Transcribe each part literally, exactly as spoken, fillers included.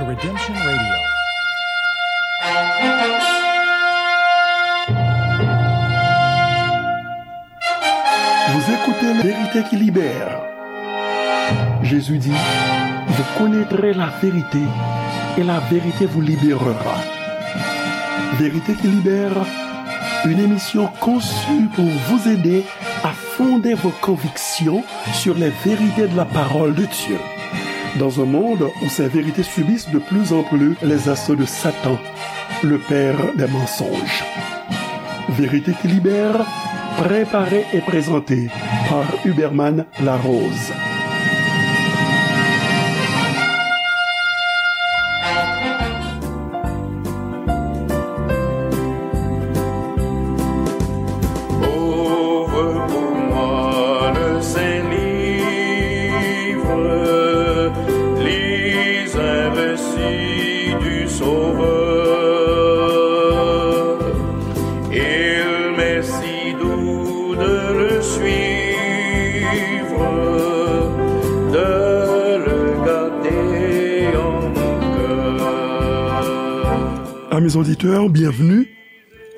Redemption Radio. Vous écoutez Vérité qui libère. Jésus dit, vous connaîtrez la vérité et la vérité vous libérera. Vérité qui libère, une émission conçue pour vous aider à fonder vos convictions sur les vérités de la parole de Dieu. Dans un monde où ces vérités subissent de plus en plus les assauts de Satan, le père des mensonges. Vérité qui libère, préparée et présentée par Huberman Larose. Ouvre pour moi le saint livre, lis un récit du Sauveur. Il m'est si doux de le suivre, de le garder en mon cœur. Amis auditeurs, bienvenue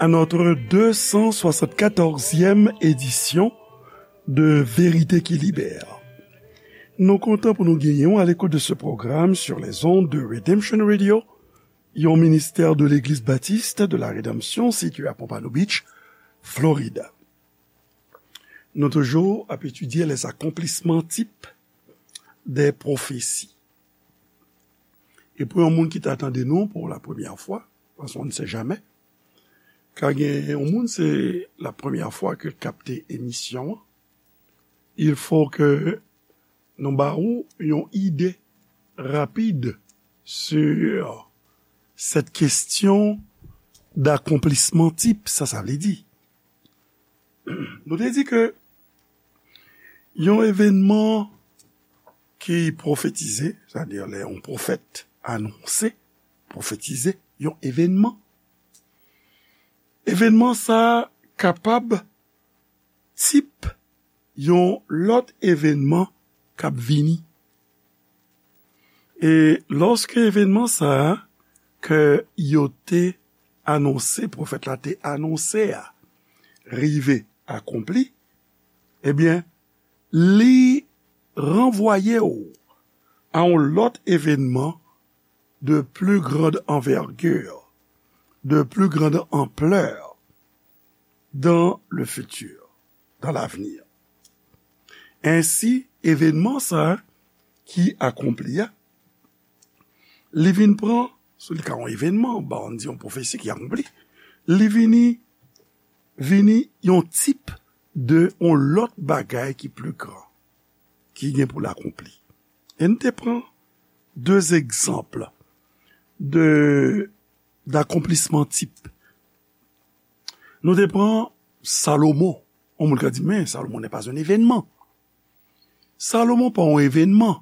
à notre deux cent soixante-quatorzième édition de Vérité qui Libère. Nou kontan pou nou genyen w à l'écoute de ce programme sur les ondes de Redemption Radio, yon ministè de Legliz Batis de la Redanmsyon sitiye à Pompano Beach, Florida. Nou toujou ap etidye les accomplissements types des prophéties. E pou yon moun ki ta tande nou pou la premyè fwa, paske on ne sait jamais, ka gen yon moun se la premyè fwa ke l kapte emisyon an, il faut que nou ba ou yon ide rapid sur cette question d'accomplissement type, sa sa vle di. Nou te di ke yon evènman ki pwofetize, sètadi lè yon pwofèt anonse, pwofetize yon evènman, evènman sa a kapab tip yon lòt evènman k ap vini. E lòske evènman sa a ke yo te anonse, pwofèt la te anonse a, rive akonpli, ebyen, li ranvwaye w a yon lòt evènman de plus grande envergure, de plus grande ampleur dans le futur, dans l'avenir. Ensi, evènman sa a ki akonpli a, li vin pran, si li ka yon evènman, ba, ann di yon pwofesi ki akonpli, li vini, vini yon tip de yon lòt bagay ki pli gran, ki gen pou l akonpli. E n te pran de egzanp de, d'accomplissement type. Nou te pran Salomon. Yon moun ka di, men Salomon n'est pas un événement. Salomon pa yon evènman,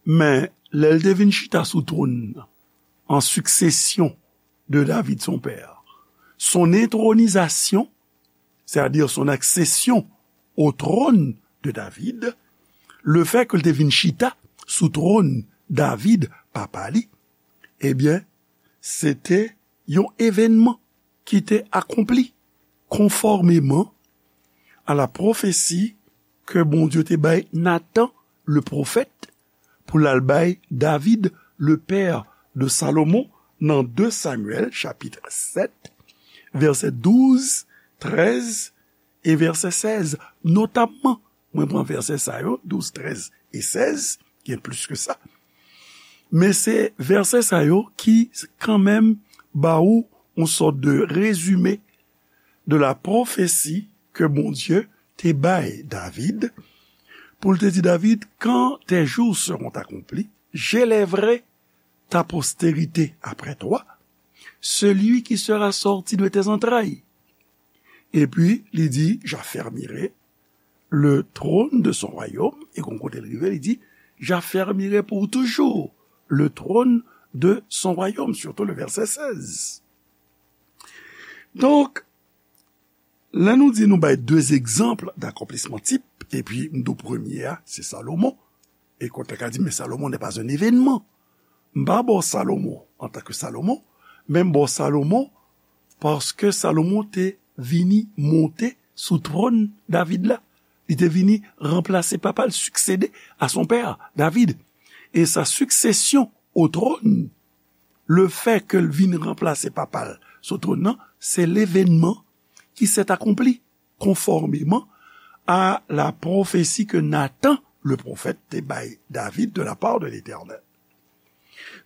men lè l te vin chita sou twòn nan, en succession de David son père, son intronisation, c'est-à-dire son accession au trône de David, le fait ke l te vin chita sou twòn David, papa li, ebyen, se te yon evènman ki te akonpli, conformément à la prophétie ke Bondye te bay Nathan, le prophète, pou l al bay David, le père de Salomon, nan de Samyèl, chapit sèt, vèsè douz, trèz e vèsè sèz, notamman. Mwen pran vèsè sa yo, douz, trèz e sèz, gen plis ke sa. Men se vèsè sa yo ki kanmenm ba ou yon sòt de rezime de la prophétie ke Bondye te bay David, pou l te di David, quand tes jours seront accomplis, j'élèverai ta postérité après toi, celui qui sera sorti de tes entrailles. Epi, li di, j'affermirai le trône de son royaume, e kon kote l rive, li di, j'affermirai pour toujours le trône de son royaume, surtout le verset seize. Donk, lè nou di nou bay de egzanp d'accomplissement type, epi m di w premye a, se Salomon, e kote ka di, men Salomon n'est pas un événement. M pa ba w Salomon antanke Salomon, men m ba w Salomon paske Salomon te vini monte sou twòn David la. Li te vini ranplase papa l, succéder à son père, David. E sa succession au trône, le fait ke l vin ranplase papa l sou twòn nan, se levenman qui s'est accompli conformément à la prophétie que Nathan, le prophète, te bay David de la part de l'Éternel.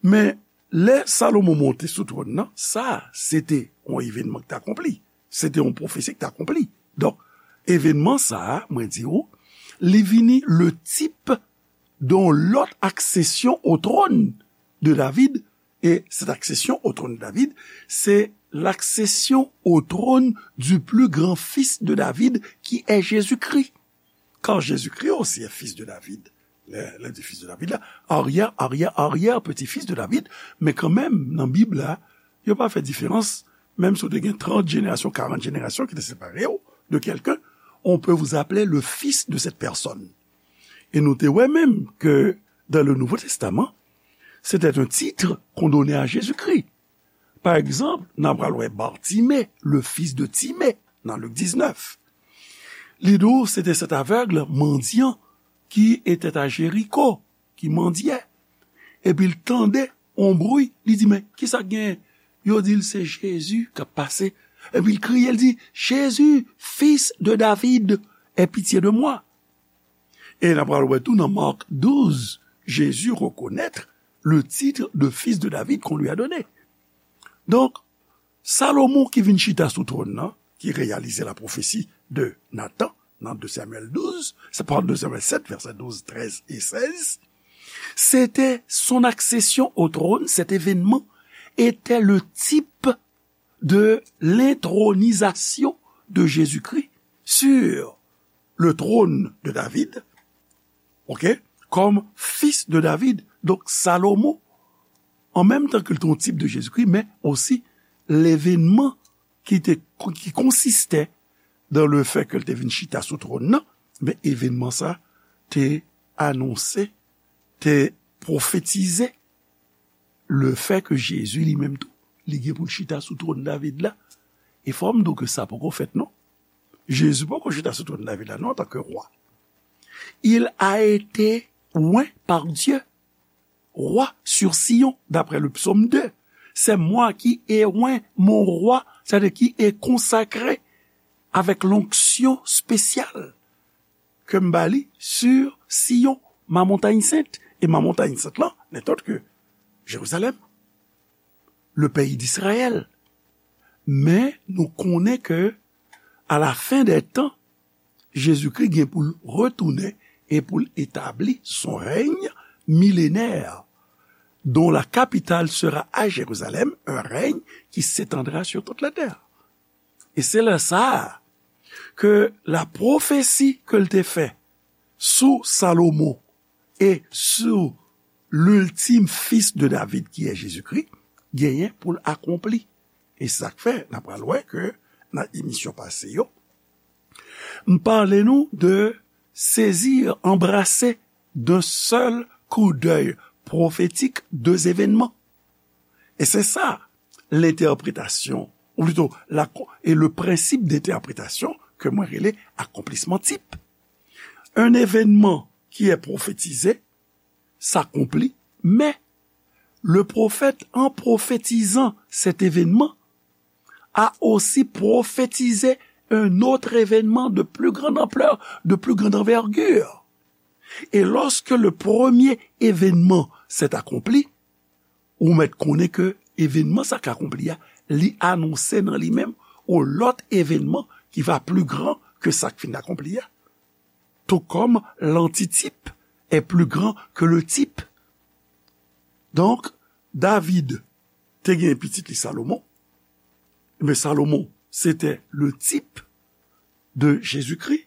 Men, lè Salomon monte sou twòn nan, sa, se te yon evenman ki t akonpli. Se te yon pwofesi ki t akonpli. Donk, evenman sa a, mwen di w, li vini le type d'une autre accession au trône de David. Et cette accession au trône de David, c'est l'accession au trône du plus grand fils de David, qui est Jésus-Christ. Car Jésus-Christ aussi est fils de David. Lè, lè di fils de David la, arrière, arrière, arrière petit-fils de David, men kanmenm, nan Bib la, yo pa fè diferans, menm si w te gen trant jenerasyon, karant jenerasyon ki te separe w de quelqu'un, on peut vous appeler le fils de cette personne. E nou te wè menm ke dans le Nouveau Testament, c'était un titre qu'on donnait à Jésus-Christ. Pa egzanp, n a pral wè Bartimée, le fils de Timée, nan Lik diznèf. Li di w, se te cet aveugle mendiant qui était à Jéricho, ki mandyè. Epi l tande yon bri, li di, men, kisa k genyen? Yo di l se Jezi k ap pase. Epi l kriye, l di, Jésus, fils de David, aie pitié de moi. E n a pral wè tou nan Marc douze, Jésus reconnaît le titre de fils de David qu'on lui a donné. Donk, Salomon ki vin chita sou twòn nan, ki reyalize la pwofesi de Nathan nan de Samyèl douz, se pa de Samyèl sèt, vèsè douz, trèz e sèz, c'était son accession au trône, cet événement était le type de l'intronisation de Jésus-Christ sur le trône de David, ok, comme fils de David. Donk, Salomon, an menm tan ke l te yon tip de Jezikri, men osi levenman ki te, ki konsiste dans le fait ke l te vin chita sou twòn nan, men evenman sa te anonse, te pwofetize le fait ke Jezi li menm tou, li gen pou l chita sou twòn David la. E fò m di w ke sa poko fèt non. Jezi poko chita sou twòn David la non, antanke wa. Il a été oint par Dieu, roi sur Sion, d'après le psaume deux. C'est moi qui ai oint mon roi, c'est-à-dire qui est consacré avec l'onction spéciale que m ba li sur Sion, ma montagne sainte. Et ma montagne sainte là n'est autre que Jérusalem, le pays d'Israël. Men nou konnen ke à la fin des temps, Jezikri gen pou l retounen e pou l etabli son règne millénaire, dont la capitale sera à Jérusalem, un règne qui s'étendra sur toute la terre. E se lè sa a ke la pwofesi ke l te fè sou Salomon e sou l'ultime fils de David, qui est Jésus-Christ, genyen pou l akonpli. E sa k fè, n a pral wè ke nan emisyon pase yo, m pale nou de saisir, embrasser d'un seul coup d'œil prophétique deux événements. E se sa, l'interprétation, ou plutôt, la, et le principe d'interprétation ke mwen rele akonplisman tip. Un événement qui est prophétisé s'accomplit, mais le prophète, en prophétisant cet événement, a aussi prophétisé un autre événement de plus grande ampleur, de plus grande envergure. Et lorsque le premier événement s'est accompli, ou mèt konnen ke evenman sa k akonpli a, li anonse nan li menm yon lòt evenman ki va plus grand que sa k fin akonpli a. Tout comme l'antitype est plus grand que le type. Donk, David te gen pitit li Salomon. Men Salomon, se te le type de Jezikri.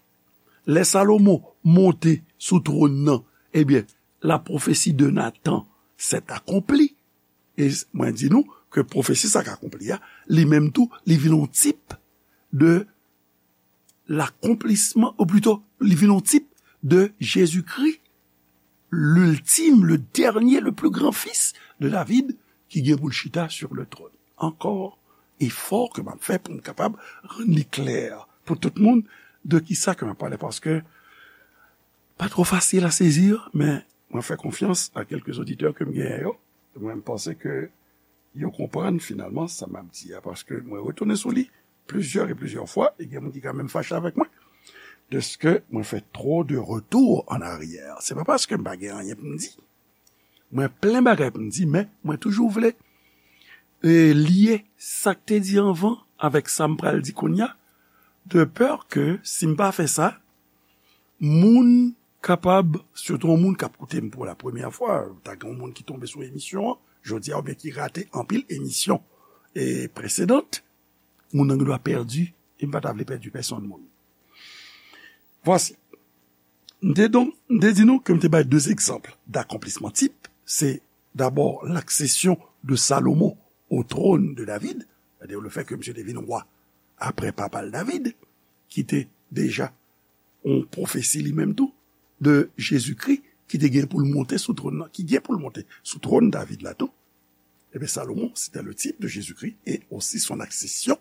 Lè Salomon monte sou twòn nan, ebyen, la prophétie de Nathan s'est accomplie. E mwen di nou ke pwofesi sa k akonpli a, li menm tou, li vin yon tip de l'accomplissement, ou plito, li vin yon tip de Jezikri. l'ultime, le dernier, le plus grand fils de David, ki gen pou l chita sur le trône. Encore effort ke m ap fè pou m kapab rann li klè pou tout moun de ki sa ke m ap pale, paske pa twò fasil a sezi, men mwen fè konfyans a kèlke oditè ke m genyen yo. Mwen, m panse ke yo konprann finalman sa m ap di a, paske mwen retounen sou li plizyè e plizyè fwa, e gen moun ki ka menm fache avèk mwen, deske mwen fè twò de retour en arrière. Se pa paske m pa gen anyen pou m di. Mwen plen bagay pou m di, men mwen toujou vle, e, lye sa k te di anvan avèk sa m pral di kounye a, de pè ke si m pa fè sa, moun kapab, sitou yon moun k ap koute m pou la premyè fwa, ta gen yon moun ki tonbe sou emisyon an jodi a, oubyen ki rate anpil emisyon, e, presedant, moun nan gen dwa pèdi, e m pa ta vle pèdi pèsonn moun. Vwasi. M te donk, m te di nou ke m te bay de egzanp d'accomplissement type. Se dabò l'accession de Salomon au trône de David, c'est-à-dire le fait que misye te vin wa apre papa l David, ki te deja yon pwofesi li menm tou de Jezikri ki te gen pou l monte sou twòn nan, ki gen pou l monte sou twòn David la tou. Ebyen, Salomon, c'était le type de Jésus-Christ et aussi son accession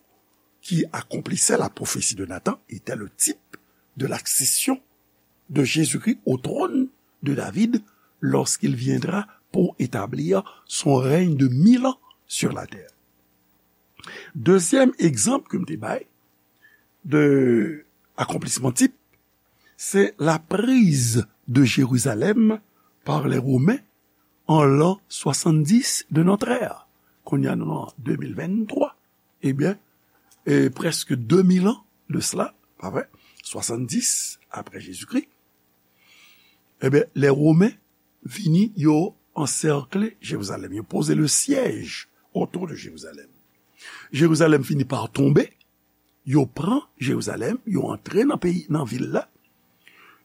qui accomplissait la prophétie de Nathan était le type de l'accession de Jésus-Christ au trône de David lorsqu'il viendra pour établir son règne de mille ans sur la terre. Dezyèm egzanp ke m te bay de akonplisman tip, se la prise de Jérusalem par les Romains en l'an soixante-dix de notre ère. Kounye a nou nan de mil venntwa. Ebyen, e, prèske de mil an de sela, pa vre? Swasanndis apre Jezikri. Ebyen, lè Women vini, yo ansèkle Jerizalèm, yo poze le siège autour de Jérusalem. Jerizalèm fini pa tonbe, yo pran Jerizalèm, yo antre nan peyi, nan vil la,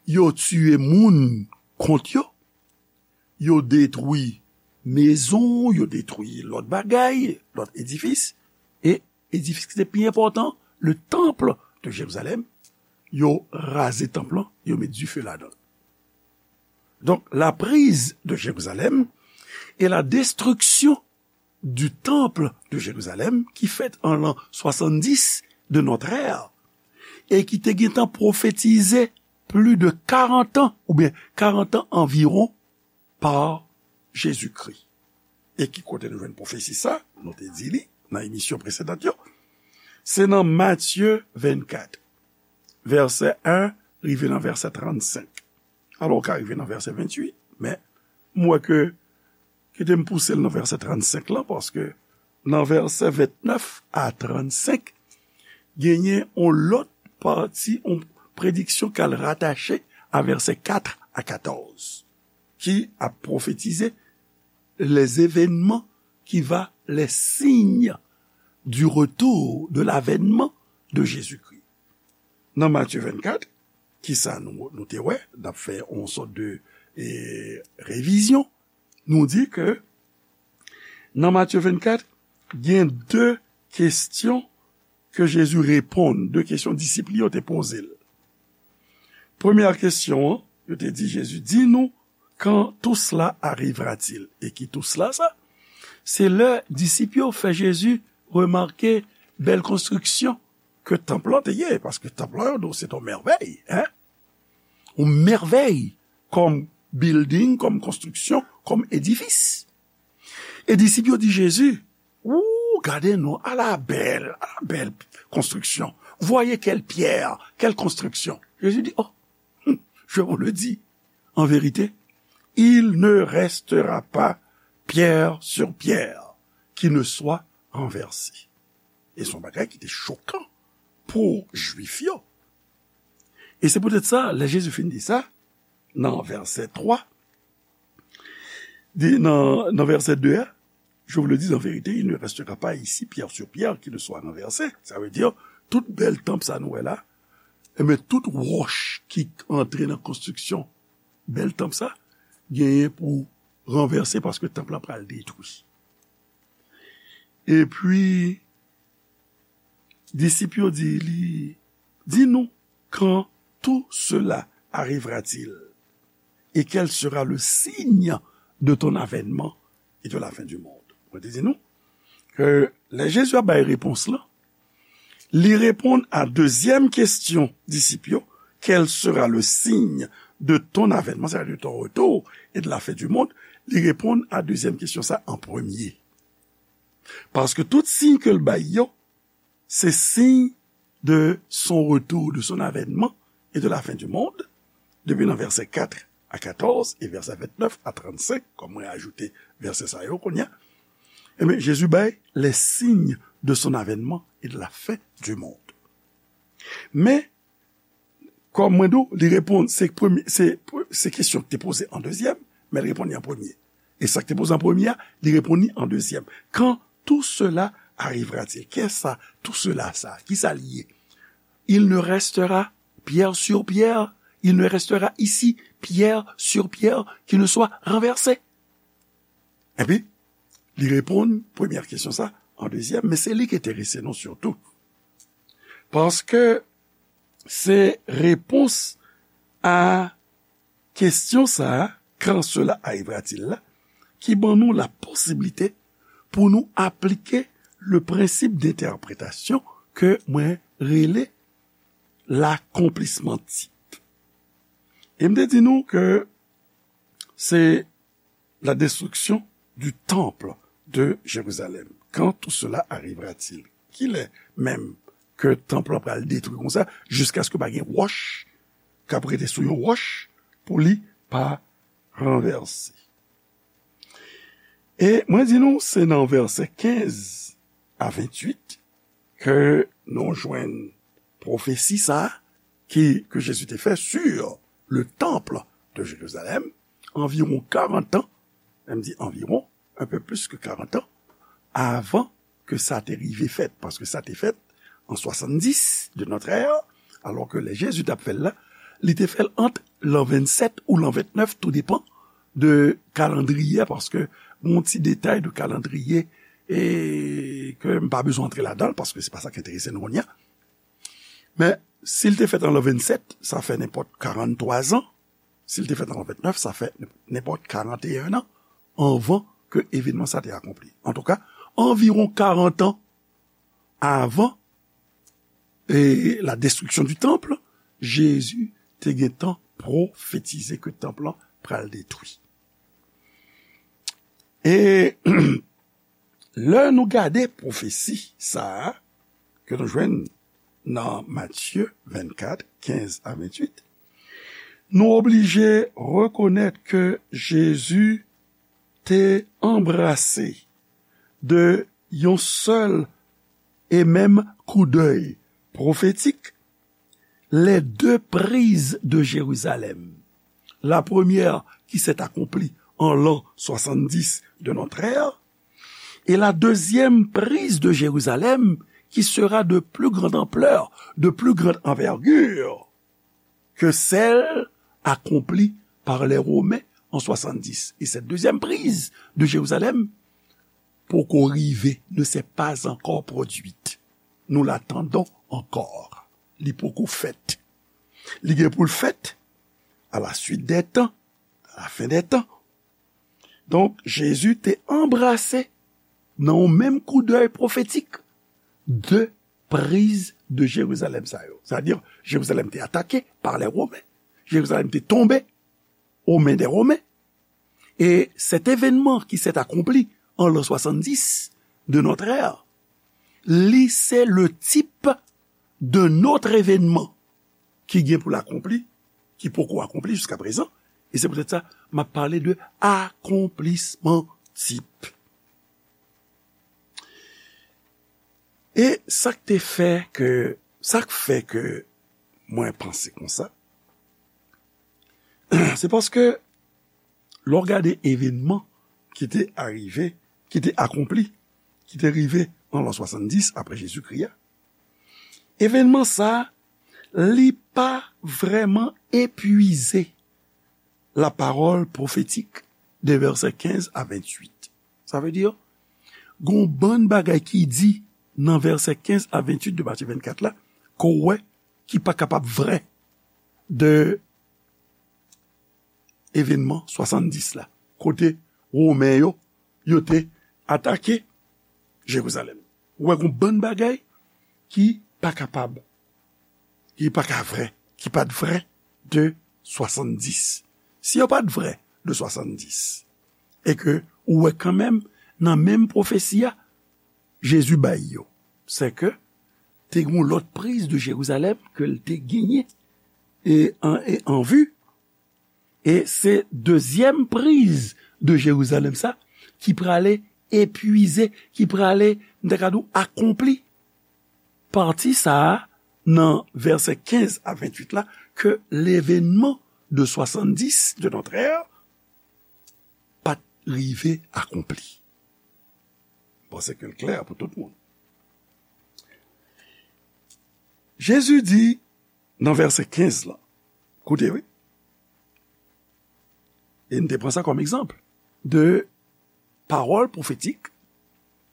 yo tiye moun kont yo, yo detwi mezon, yo detwi lòt bagay, lòt edifis, e edifis ki te pi enpòtan, le temple de Jérusalem, yo raze tanp lan, yo met dife ladan l. Donc, la prise de Jérusalem et la destruction du temple de Jérusalem, ki fèt an l'an soixante-dix de notre ère, e ki te gentan pwofetize plis de karant an, oubyen karant an anviwon, pa Jezikri. E ki kote nou jwenn pwofesi sa? Nou te di li nan emisyon presedan yo. Se nan Matye vennkat, vèsè en rive nan vèsè trannsenk. Alò, w ka rive nan vèsè venntuit, men m wè ke, kite m pouse l nan vèsè trannsenk lan, paske nan vèsè vennèf a trannsenk, genyen yon lòt pati, yon prediksyon k al ratache a vèsè kat a katòz, ki ap pwofetize les événements qui va, les signes du retour, de l'avènement de Jésus-Christ. Nan Matye vennkat, kisa nou, nou te wè? N ap fè yon sòt de, e, revizyon. Nou di ke nan Matye vennkat, gen de kesyon ke Jezi reponn, de kesyon disip li yo te poze l. Premyè kesyon an, yo te di Jezi, dis-nous, quand tout cela arrivera-t-il? E ki tout cela sa? Se lè disip yo fè Jezi remake bèl konstriksyon ke tanp lan te ye, paske tanp lan, yo di w, se yon mèvèy, en? Yon mèvèy kòm building, kòm konstriksyon, kòm edifis. E disip yo di Jezi, ou, gade non, ala bèl, ala bèl konstriksyon. Voyez quelle pierre, quelle construction. Jezi di, oh, je vous le dis, en vérité, il ne restera pas pierre sur pierre qui ne soit renversée. E se yon bagay ki te chokan pou Jwif yo. E se poutèt sa, lè Jezi fin di sa, nan vèsè twa, di, nan, nan vèsè de a, je vous le dis en vérité, il ne restera pas ici pierre sur pierre qui ne soit renversée. Sa vle di, tout bèl tanp sa nou wè la, enben, tout wòch ki antre nan konstriksyon bèl tanp sa, genyen pou ranvèse paske tanp la pral detwi. Epi, disip yo di li, dis-nous, quand tout cela arrivera-t-il? et quel sera le signe de ton avènement et de la fin du monde? Mwen te di nou ke lè Jezi ap bay repons lan, li reponn a dezyèm kesyon disip yo, quel sera le signe de ton avènement, c'est-à-dire de ton retour et de la fin du monde? Li reponn a dezyèm kesyon sa an premye. Paske tout siy ke l bay yo, se siy de son retour, de son avènement et de la fin du monde, depi nan vèsè kat a katòz e vèsè vennèf a trannsenk, kòm mwen ajoute vèsè sa yo kounye a, ebyen, Jezi bay les signes de son avènement et de la fin du monde. Men, kòm mwen di w, li reponn, se premye, se, se kesyon ki te poze an dezyèm, men li reponn li an premye. E sa ki te poze an premye a, li reponn li an dezyèm. Quand tout cela arrivera-t-il? Kisa tout cela sa? Kisa l ye? Il ne restera pierre sur pierre, il ne restera ici pierre sur pierre qui ne soit renversée. Epi, li reponn premyè kesyon sa an dezyèm, men se li ki enterese nou sitou. Paske se repons a kesyon sa a, quand cela arrivera-t-il la, ki ban nou la posiblite pou nou aplike le prensip dentèpretasyon ke mwen rele l'accomplissement type. E m te di nou ke se la destruction du temple de Jérusalem. Quand tout cela arrivera-t-il? Kilè menm ke tanp lan pral detwi konsa, jiskaske pa gen wòch k ap rete sou yon wòch pou li pa ranvèse? E mwen di nou, se nan vèsè kenz a venntuit ke nou jwenn pwofesi sa a ki, ke Jezi te fè sur le temple de Jérusalem, anviwon karant an, m di anviwon, un peu plus que quarante ans, avan ke sa te rive fèt, paske sa te fèt an swasanndis de notre ère, alò ke lè Jezi t ap fè l la, li te fè l ant lan vennsèt ou lan ventnèf, tou depan de kalandriye, paske gon ti detay de kalandriye e ke m pa bezwen antre ladan l, paske se pa sa k enterese nou kounye a. Men, si l te fèt an lan vennsèt, sa fè nenpòt karanntwa zan. Si l te fèt an lan ventnèf, sa fè nenpòt karanteyen an anvan ke evènman sa te akonpli. Antouka, anviwon karant an avan e la destruction du temple, Jezi te gentan pwofetize ke tanp lan pral detwi. E lè nou gade pwofesi sa a, ke nou jwenn nan Matye vennkat, kenz a venntuit, nou oblije rekonèt ke Jezi te anbrase de yon sèl e menm koudèy pwofetik les deux prises de Jérusalem. La première qui s'est accomplie en l'an soixante-dix de notre ère, et la deuxième prise de Jérusalem qui sera de plus grande ampleur, de plus grande envergure que celle accomplie par les Romains en soixante-dix. Et cette deuxième prise de Jérusalem poko rive, ne s'est pas encore produite. Nous l'attendons encore. Li poko fèt. Li gen pou l fèt à la suite des temps, à la fin des temps. Donk, Jezi te anbrase nan yon menm koudèy pwofetik de priz de Jerizalèm sa yo. Sètadi, Jerizalèm te atake pa lè Women. Jerizalèm te tonbe aux mains des Romains. Et cet événement qui s'est accompli en l'an soixante-dix de notre ère, li se le type de notre événement ki gen pou l akonpli, ki poko akonpli jiska prezan. E se poutèt sa, m ap pale de akonplisman tip. E sa k te fè ke, sa k fè ke mwen panse konsa, se paske lè w gade evènman ki te arive, ki te akonpli, ki te rive an lan swasanndis apre Jezikri a, evènman sa a, li pa vrèman epuize la parole prophétique de vèsè kenz a venntuit. Sa vle di, gon bann bagay ki di nan vèsè kenz a venntuit de Matye vennkat la, ke w wè ki pa kapab vrè de evènman swasanndis la, kote Women yo, yo te atake Jerizalèm. Ou wè gon bann bagay ki pa kapab, ki pa ka vrè, ki pa t vrè de swasanndis. Si yo pa t vrè de swasanndis, e ke ou wè kanmenm nan menm pwofesi a, Jezi bay yo, se ke te gen yon lòt priz de Jerizalèm ke l te genyen e an, e an vi, e se dezyèm priz de Jerizalèm sa ki prale epwize, ki prale, m ta ka di w, akonpli. Pati sa a, nan vèsè kenz a venntuit la, ke levènman de swasanndis de notre ère pa t rive akonpli. M panse ke l klè pou tout moun. Jezi di nan vèsè kenz la, koute, wi, e n te pran sa kòm egzanp de pawòl pwofetik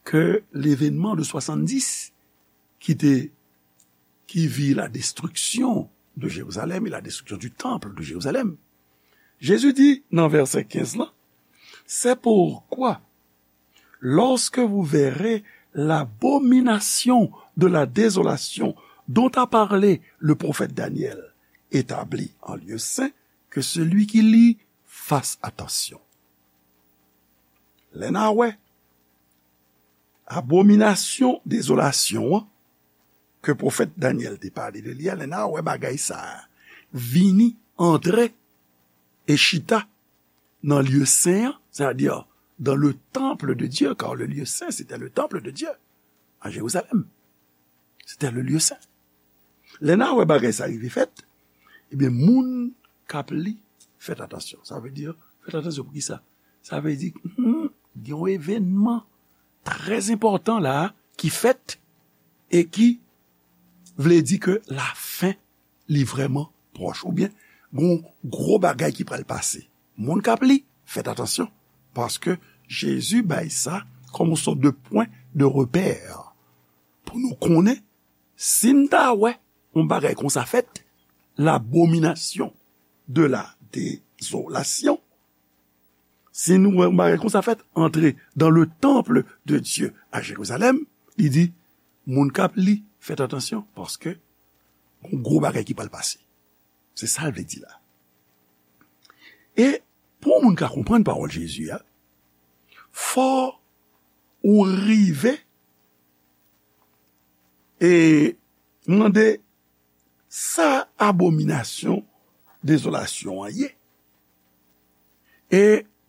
ke levènman de swasanndis ki te, qui vit la destruction de Jérusalem et la destruction du temple de Jérusalem. Jezi di nan vèsè kenz la, c'est pourquoi, lorsque vous verrez l'abomination de la désolation dont a parlé le prophète Daniel établie en lieu saint, que celui qui lit fasse attention. Lè n a wè abominasyon dezolasyon an ke pwofèt Danyèl te pale de li a, lè n a wè bagay sa a vini, antre e chita nan lye sen an, c'est-à-dire dans le temple de Dieu, car le lieu saint, c'était le temple de Dieu à Jérusalem. C'était le lieu saint. Lè n a wè bagay sa rive fèt, ebyen, moun k ap li, fèt atansyon. Sa vle di, fèt atansyon pou ki sa? Sa vle di, hmm, gen yon evènman trè enpòtan la a ki fèt e ki vle di ke lafen li vrèman pwòch, oubyen gon gwo bagay ki pral pase. Moun k ap li, fèt atansyon, paske Jezi bay sa kòm yon sòt de pwen de repè pou nou konnen si n ta wè yon bagay konsa fèt, l'abomination de la désolation, si nou wè yon bagay konsa fèt, antre dans le temple de Dieu à Jérusalem, li di, moun k ap li, fèt atansyon, paske yon gwo bagay ki pral pase. Se sa l vle di la. E pou yon moun ka konprann pawòl Jezi a, fò ou rive e mande sa abominasyon dezolasyon an ye. E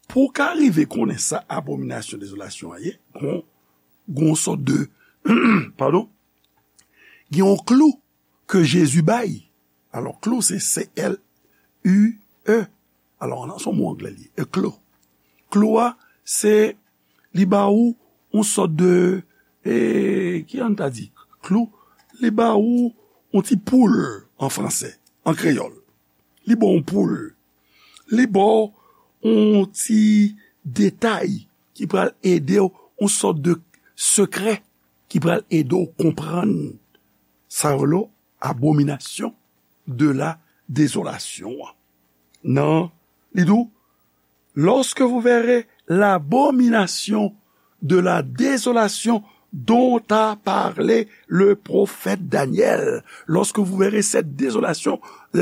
pou w ka rive konnen sa abominasyon dezolasyon an ye, gon, gon sòt de, padon, gen yon klou ke Jezi bay. Alò, klou, se C L U E. Alò, nan son mo anglè li, a klou. Klou a, se, li ba ou yon sòt de, e, ki an ta di? Klou, li ba ou yon ti poul an fransè, an kreyòl. Li ba w yon poul. Li ba w yon ti detay ki pral ede w, yon sòt de sekrè ki pral ede w konprann sa yo rele abominasyon de la dezolasyon an. Nan, li di w, lorsque vous verrez l'abomination de la désolation dont a parlé le prophète Daniel, lorsque vous verrez cette désolation,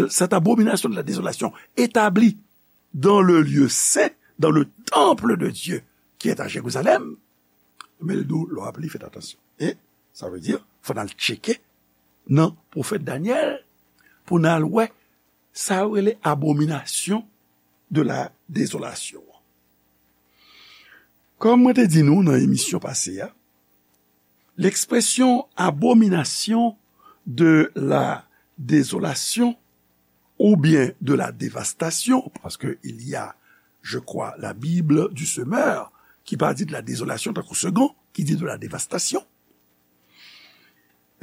cette abomination de la désolation établie dans le lieu saint, dans le temple de Dieu qui est à Jérusalem, men l di w, lè w ap li, fèt atansyon. E sa vle di, fò n al tcheke nan pwofèt Danyèl pou n al wè sa yo rele abominasyon de la dezolasyon an. Kòm mwen te di nou nan emisyon pase a, l'expression abomination de la désolation ou bien de la dévastation, parce que il y a, je crois, la Bible du Semeur, ki pa di de la désolation tankou Segond, ki di de la dévastation.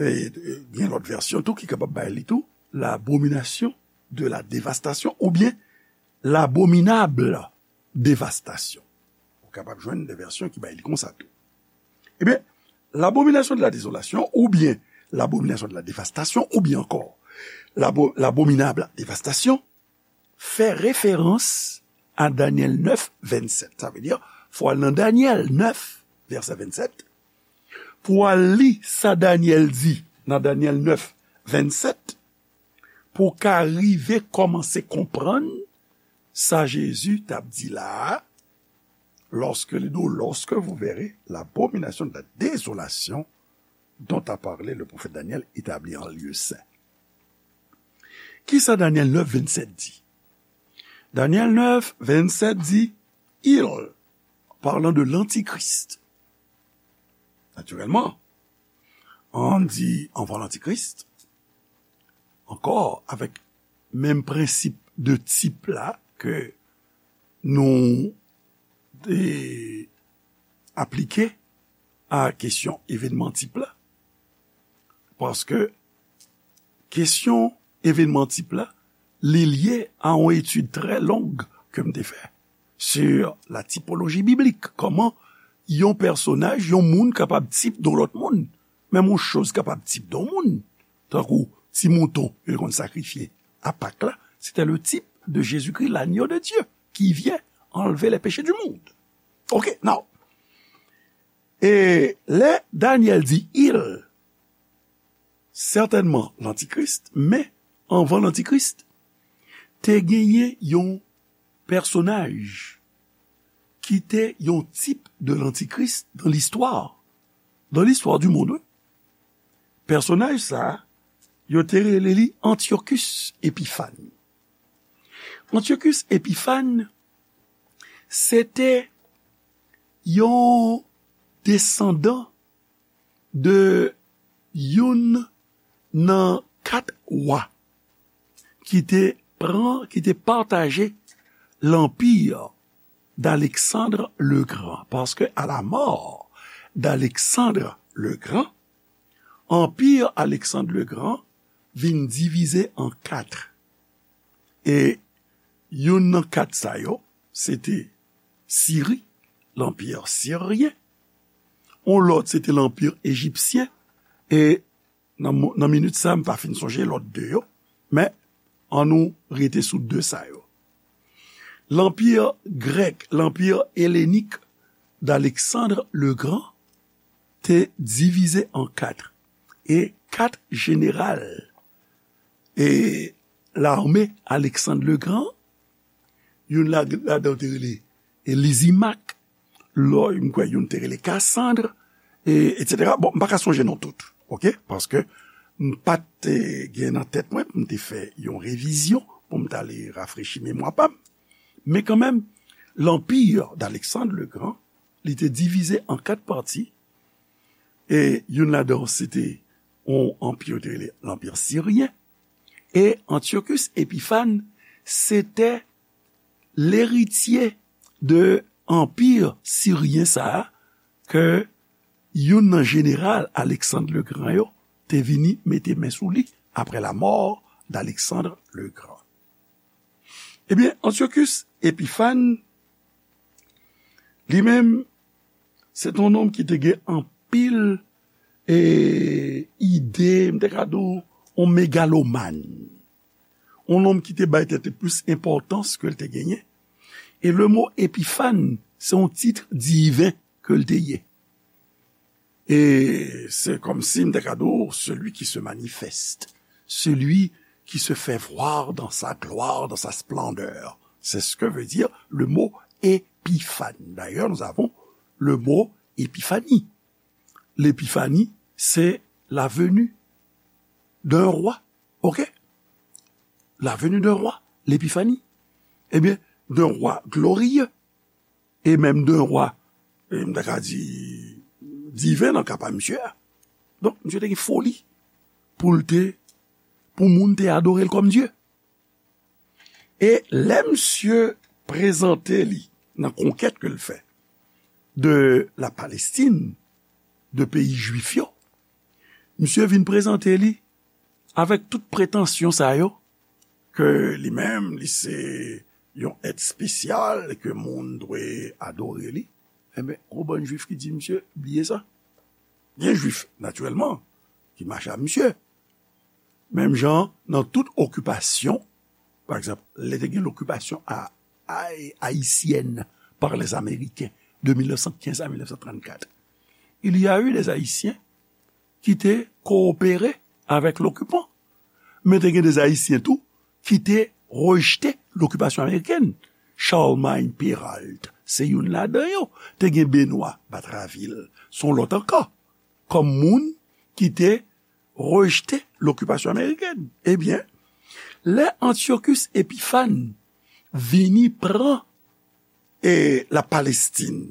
E, e, gen lòt vèsyon tou ki kapab bay li tou, l'abomination de la dévastation ou bien l'abominable dévastation. Ou kapab jwenn de vèsyon ki bay li konsa tou. Ebyen, l'abomination de la désolation ou bien l'abomination de la dévastation ou bien encore l'abo-, l'abominable dévastation fè referans à Daniel neuf, vingt-sept. Sa vle di, fò w al nan Daniel neuf, vèsè vennsenk, pou w al li sa Daniel di nan Daniel neuf, vennsenk, pou w ka rive kòmanse konprann sa Jezi t ap di la a, lorsque, lorsque vous verrez l'abomination de la désolation dont a parlé le prophète Daniel établie en lieu saint. Kisa Daniel neuf, vennsenk di? Daniel neuf, vennsenk di, il, parlant de l'antichrist. Naturellement, an di anvan l'antichrist, ankò avèk menm prensip de tip la ke nou te aplike a kesyon evènman tip la. Paske kesyon evènman tip la, li lye a yon etid trè long ke m te fè sur la typologie biblique. Kòman yon pèsonaj, yon moun kapab tip de yon lòt moun. Menm yon choz kapab tip de yon moun. Tankou ti mouton yo te konn sakrifye a Pak la, c'était le type de Jésus-Christ, l'agneau de Dieu, qui vient enlever les péchés du monde. Ok, now. E lè Daniel di il, sètènman lantikris, men anvan lantikris, te genyen yon pèsonaj ki te yon tip de lantikris dans l'histoire. Dans l'histoire du monde, wi. Pèsonaj sa a, yo te rele li Antiochus Epiphan. Antiochus Epiphan, se te yon desandan de youn nan kat wa ki te pran, ki te pataje l'empire d'Alexandre le Grand. Paske à la mort d'Alexandre le Grand, anpi Alexandre le Grand vin divize an kat. E youn nan kat sa yo, se te Siri, l'empire syrien. On lòt, se te l'empire égyptien. E nan mo-, nan minit sa, m pa fin sonje lòt de yo. Men, ann nou rete sou de sa yo. Lanpir grèk, lanpir elenik d'Alexandre le Grand te divize an kat. E kat jeneral e lame Alexandre le Grand, youn la, ladan yo te rele e Lizimak, lò, m kwè youn te rele Kasandre, e, etsetera. Bon, m pa ka sonje non tout, oke? Paske m pa t, e, gen nan tèt mwen pou m te fè yon revizyon pou m t ale rafrechi memwa pa m. Men kanmenm, l'empire d'Alexandre le Grand, li te divize an kat pati, e youn ladan yo se te yon anpi yo te rele l'empire syrien, e Antiochus Epiphan se te leritye de anpi siryen sa a ke youn nan jeneral Alexandre le Grand yo te vini mete men sou li après la mort d'Alexandre le Grand. Ebyen, Antiochus Epiphan, li menm, se te yon nonm ki te gen anpil, e, ide, m te ka di w, yon megalomàn. Yon nonm ki te bay tèt li plis enpòtans ke l te genyen. E le mo Epiphan, se yon tit diven ke l te ye. E se kòmsi m te ka di w, celui qui se manifeste, celui qui se fait voir dans sa gloire, dans sa splendeur. C'est ce que veut dire le mot épiphane. D'ailleurs, nous avons le mot épiphanie. L'épiphanie, c'est la venue d'un roi. Ok? La venue d'un roi, l'épiphanie. Ebyen, d'un roi glorieux. E menm de yon wa, e, m ta ka di, diven nan ka pa misye a. Donk, misye te gen foli pou l te, pou moun te adore l kòm Dye. E lè misye prezante li nan konkèt ke l fè de la Palestine, de peyi jwif yo, misye vin prezante li avèk tout pretansyon sa yo, ke li menm, li se yon èt espesyal, ke moun dwe adore li, enben, yon bann jwif ki di, misye, bliye sa. Gen jwif, natirèlman, ki mache ak misye. Menm jan, nan tout okipasyon, pa egzanp, lè te gen lokipasyon a ay- haïtienne par les Américains de mil nèf san kenz a mil nèf san trannkat. Il y a eu des Haïtiens ki te kowopere avèk lokipan. Men te gen de Ayisyen tou ki te rejte lokipasyon amerikèn. Charlemagne Péralte se youn ladan yo. Te gen Benoît Batraville, se yon lòt ankò, kòm moun ki te rejte lokipasyon amerikèn. Ebyen, lè Antiochus Épiphanes vini pran e la Palestine,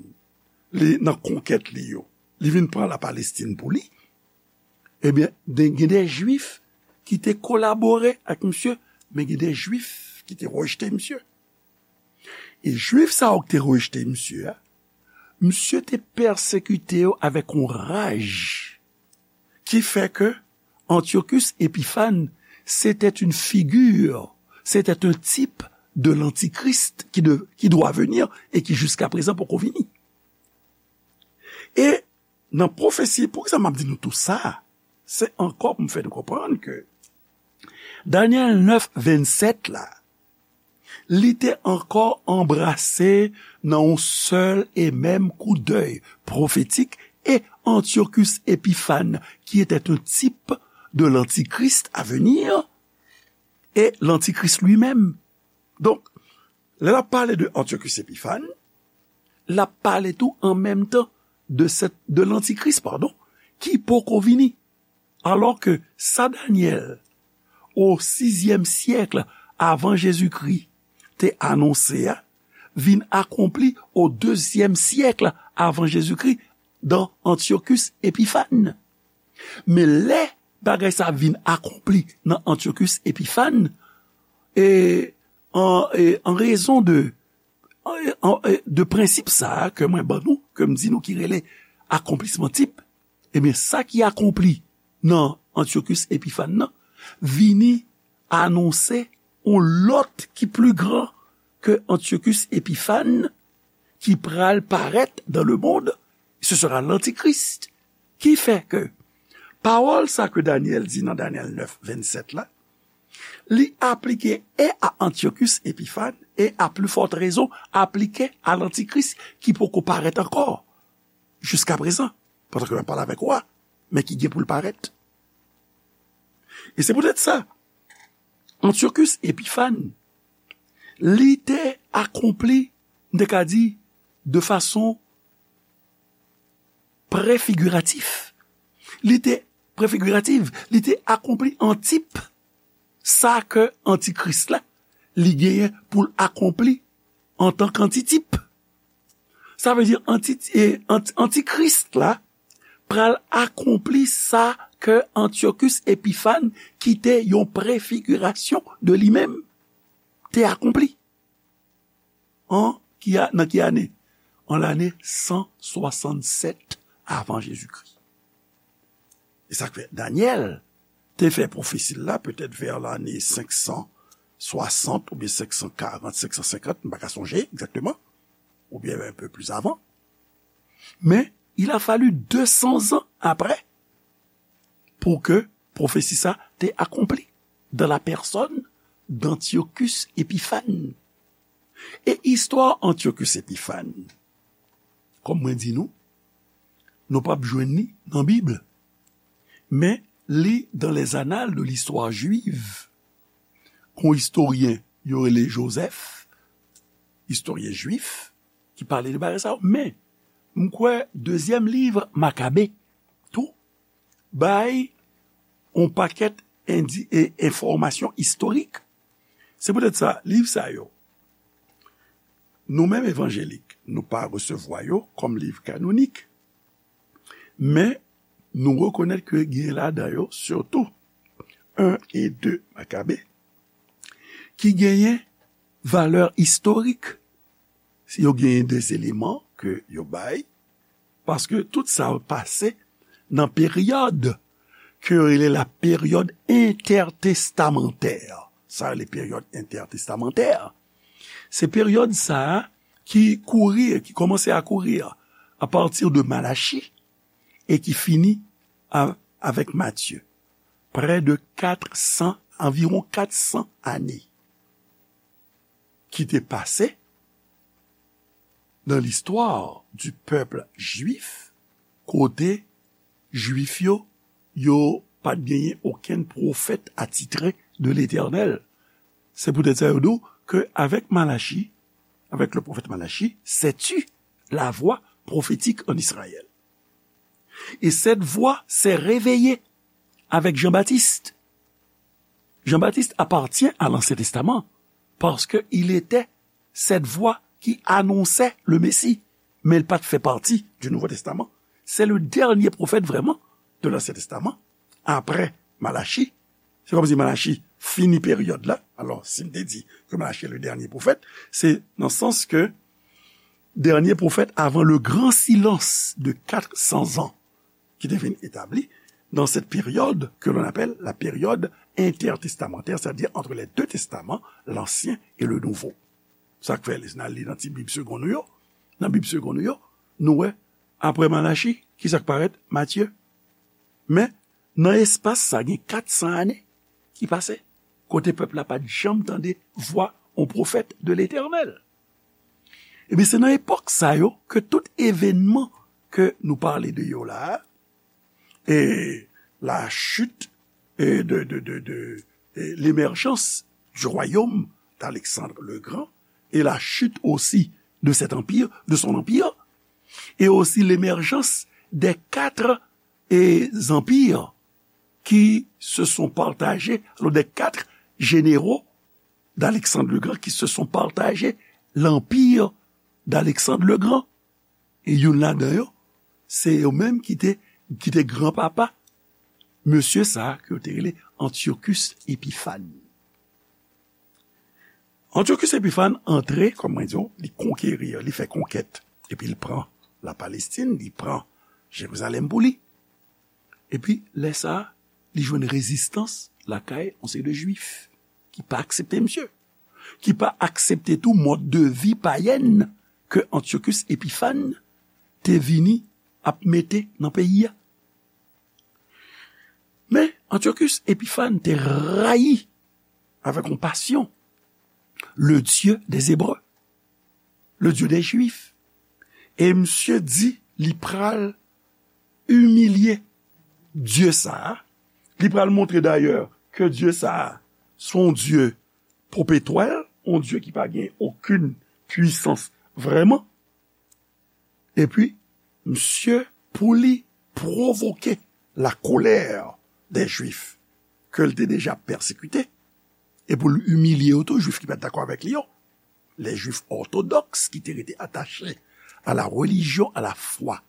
li nan konkèt li yo, li vin pran la Palestine pou li, ebyen, de- gen de Jwif ki te kolabore ak misye, men gen de Jwif ki te rejte misye. E Jwif sa yo ki te rejte misye a, misye te pèsekite yo avèk yon raj ki fè ke Antiochus Épiphanes, c'était une figure, c'était un type de l'antichrist qui, de- qui doit venir et qui jusqu'à présent poko vini. E nan pwofesi, poukisa m ap di nou tou sa? Se ankò pou m fè nou konprann ke Danyèl nèf vennsèt la, li te ankò anbrase nan yon sèl e menm koudèy pwofetik e Antiochus Épiphanes, qui était un type de l'antichrist à venir, et l'antichrist lui-même. Donk, lè l ap pale de Antiochus Épiphanes, l ap pale tou an menm tan de, sèt- de l'antichrist, padon, ki poko vini. Alò ke sa Danyèl, o sizyèm syèk avan Jezikri, te anonse a, vin akonpli o dezyèm syèk avan Jezikri, dan Antiochus Épiphanes. Men lè bagay sa vin akonpli nan Antiochus Épiphanes, e an, e an rezon de, an, e, de prensip sa a ke mwen ban nou, ke m di nou ki rele akonplisman tip, ebyen, sa ki akonpli nan Antiochus Épiphanes nan, vini anonse yon lòt ki pli gran ke Antiochus Épiphanes ki pral parèt dans le monde, ce sera l'antichrist. Ki fè ke pawòl sa ke Danyèl di nan Danyèl nèf vennsèt la, li aplike e a Antiochus Épiphanes e a pli fòt rezon aplike a l'antichrist ki poko parèt ankò jiska prezan, pandan ke m ap pale avèk ou a, men ki gen pou l parèt. E se poutèt sa, Antiochus Épiphanes, li te akonpli, m te ka di, de fason prefigiratif. Li te prefigiratif, li te akonpli an tip sa ke antikris la, li genyen pou l akonpli antan k antitip. Sa vle di anti, e, anti, antikris la pral akonpli sa ke Antiochus Épiphanes, ki te yon prefigirasyon de li menm, te akonpli. An ki a, nan ki ane? An lane san swasannsèt avan Jezikri. E sa k fè Danyèl te fè pwofesi l la petèt vè lane senk san swasant oubyen senk san karant, senk san senkant, m pa ka sonje egzakteman, oubyen un peu plus avant. Men, il a fallu deux cents ans après pour que pwofesi sa te akonpli dans la personne d'Antiochus Épiphanes. E istwa Antiochus Épiphanes, kòm mwen di nou, nou p ap jwenn li nan Bib. Men li dans les annales de l'histoire juive, kon istoryen yo rele Joseph, istoryen jwif, ki pale de bagay sa yo. Men, m kwè dezyèm liv Makabe tou bay yon pakèt indi, e enfòmasyon istorik. Se poutèt sa, liv sa yo, nou menm evanjelik, nou pa resevwa yo kòm liv kanonik. Men, nou rekonèt ke gen ladan yo, sitou un e de Makabe, ki genyen valè istorik. Yo genyen de eleman ke yo bay, paske tout sa yo pase nan peryòd ke yo rele la période intertestamentaire. Sa rele période intertestamentaire. Se peryòd sa a ki kouri, ki kòmanse a kouri a partir de Malachi e ki fini a, avèk Matye. Près de quatre cents, anviwon kat san ane ki te pase dans l'histoire du peuple juif, kote Jwif yo, yo pa t genyen okenn pwofèt atitre de Letènèl. Se poutèt sa yo di w ke avèk Malachi, avec le prophète Malachi, c'est tu la voix prophétique en Israël. Et cette voix s'est réveillée avec Jean-Baptiste. Jean-Baptiste appartient à l'Ancien Testament parce qu'il était cette voix qui annonçait le Messie. Men l pa t fè pati du Nouveau Testament. C'est le dernier prophète vraiment de l'Ancien Testament, après Malachi. Se kòmsi Malachi fini peryòd la. Alò, si m te di ke Malachi est le dernier prophète, se nan sans ke dènye pwofèt avan le grand silence de quatre cents ans ki te vin etabli dans cette période que l'on appelle la période intertestamentaire, c'est-à-dire entre les deux testaments, l'Ancien et le Nouveau. Sa k fè, lè n al li nan ti Bib segon nou yo, nan Bib segon nou yo, nou wè, apre Malachi, ki sa k parèt? Matye. Men, nan espas sa, gen kat san ane ki pase, kote pèp la pa t janm tande vwa yon pwofèt de Letènèl. Ebyen, se nan epòk sa yo ke tout evènman ke nou pale de yo la a, et la chute, et de, de, de, de, et l'émergence du royaume d'Alexandre le Grand, et la chute aussi de cet empire, de son empire, et aussi l'émergence des quatre, et, empires qui se sont partagés, alors des quatre généraux d'Alexandre le Grand qui se sont partagés l'empire d'Alexandre le Grand. E youn ladan yo, se yo menm ki te, ki te granpapa mesye sa a ke yo te rele Antiochus Epiphan. Antiochus Epiphan antre, kòm mwen di w, li konkeri, li fè konkèt, epi li pran la Palestin, li pran Jerizalèm pou li. Epi, lè sa a, li jwenn rezistans lakay yon seri de Jwif ki pa aksepte misye, ki pa aksepte tou mòd de vi payèn ke Antiochus Epiphan te vini ap mete nan peyi a. Men, Antiochus Epiphan te rayi avèk yon pasyon le Dieu des Hébreux, le Dieu des Juifs. E misye di li pral imilye Dye sa a. Li pral montre dayè ke Dye sa a se yon Dye popetwèl, yon Dye ki pa gen okenn pwisans vrèman. Epi, misye, pou li pwovoke la colère des Juifs ke l te deja pèsekite, e pou l imilye yo tou, Jwif ki pa t dakò avèk li yo, les Juifs orthodoxes qui étaient restés attachés à la religion, à la foi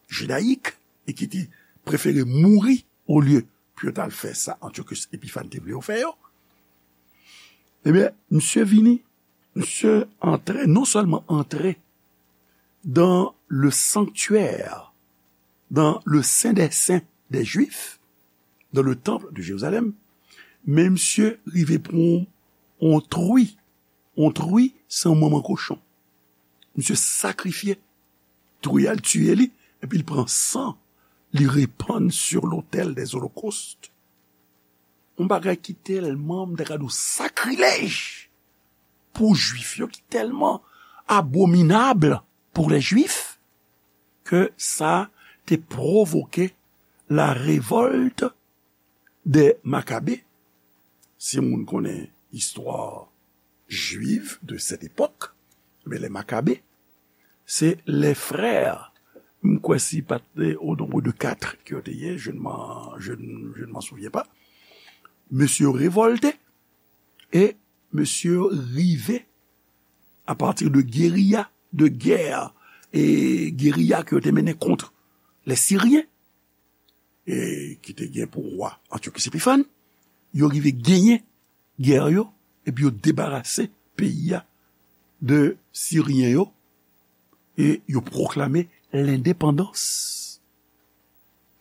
judaïque, et qui étaient préférés mourir au lieu pou yo t al fè sa Antiochus Epiphan te vle yo fè yo. Ebyen, misye vini, misye antre, non sèlman antre dans le sanctuaire, dans le saint des saints des Juifs, dans le temple de Jérusalem, men misye rive pran yon, yon tri. Yon tri, se yon manman kochon. Misye sakrifye tri a, l tiye li, epi l pran san, li repann sur l'autel des holocaustes. Yon bagay ki tèlman, m ta ka di w, sakrilèj pou Jwif yo, ki tèlman abominab pour les Juifs, ke sa te pwovoke la révolte des Maccabées. Si moun konnen istwa jwiv de cette époque, men les Maccabées, se les frères, m kwè si pa t au nombre de quatre ke yo te ye, je ne m'en, je ne, je ne m'en souviens pas. Mesye yo revòlte e mesye yo rive à partir de guérilla, de guerre, e guérilla ke yo te mennen kont les Syriens, e ki te gen pou wa Antiochus Epiphan, yo rive genyen gè yo, epi yo debarase peyi a de Siryen yo, e yo pwoklame lendepandans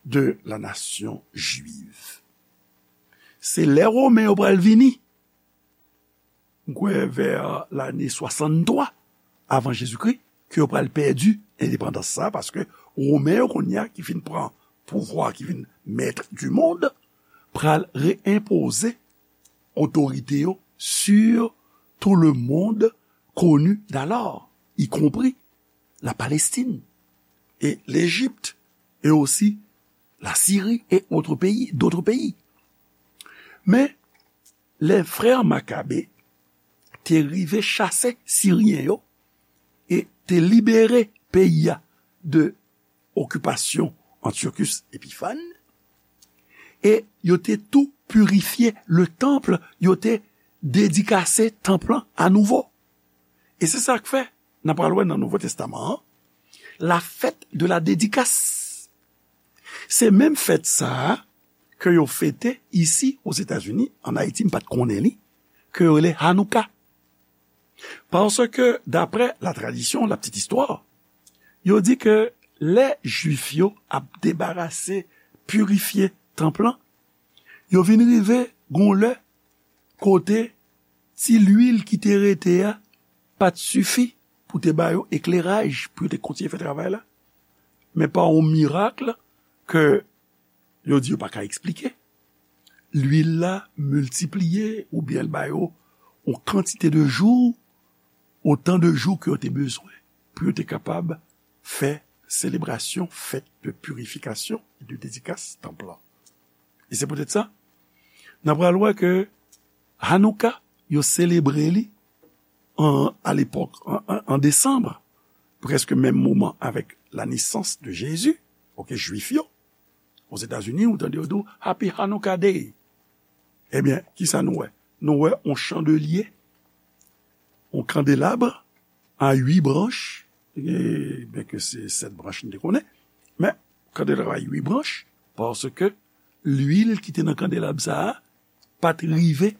de la nation juive. Se lè Women yo pral vini, m kwè vè lane swasanntwa avan Jezikri, ke yo pral pèdi endepandans sa, paske Women yo kounye a ki fin pran pouvwa, ki vin maître du monde, pral reenpoze otorite yo sur tout le monde connu d'alors, y compris la Palestine et l'Égypte, et aussi la Syrie et autres pays, d'autres pays. Men, les frères Macabées te rive chase Siryen yo e te libere peyi a de okipasyon Antiochus Epiphan, e yo te tou pirifye le temple, yo te dedikase tanp lan anouvo. E se sa k fè, n a pral wè nan Nouvo Testaman an, la fête de la dédicace. Se menm fèt sa a ke yo fete isi Ozetazini, an Ayiti, m pa t konnen li, ke yo rele Hanouka. Paske, daprè la tradisyon, la petite histoire, yo di ke lè Jwif yo ap debarase, pirifye tanp lan, yo vin rive gon lè kote ti lwil ki te rete a pa t sifi pou te ba yo ekleraj pou yo te kontinye fè travay la. Men pa yon mirak ke yo di yo pa ka eksplike, lwil la miltipliye oubyen l ba yo yon kantite de jou, otan de jou ke yo te bezwen pou yo te kapab fè selebrasyon, fèt de pirifikasyon e de dedikas tanp lan. E se poutèt sa, n ap pral wè ke Hanouka, yo selebre li an, a lepòk, an, an, an desanm, prèske menm moman avèk la nesans de Jezi, oke, Jwif yo, Ozetazini, ou tande yo di w, Happy Hanukkah Day. Ebyen, kisa nou wè? Nou wè yon chandelye, yon kandelab a uit branch, e, byenke se sèt branch nou te konnen, men kandelab a uit branch, paske lwil ki te nan kandelab sa a pa t rive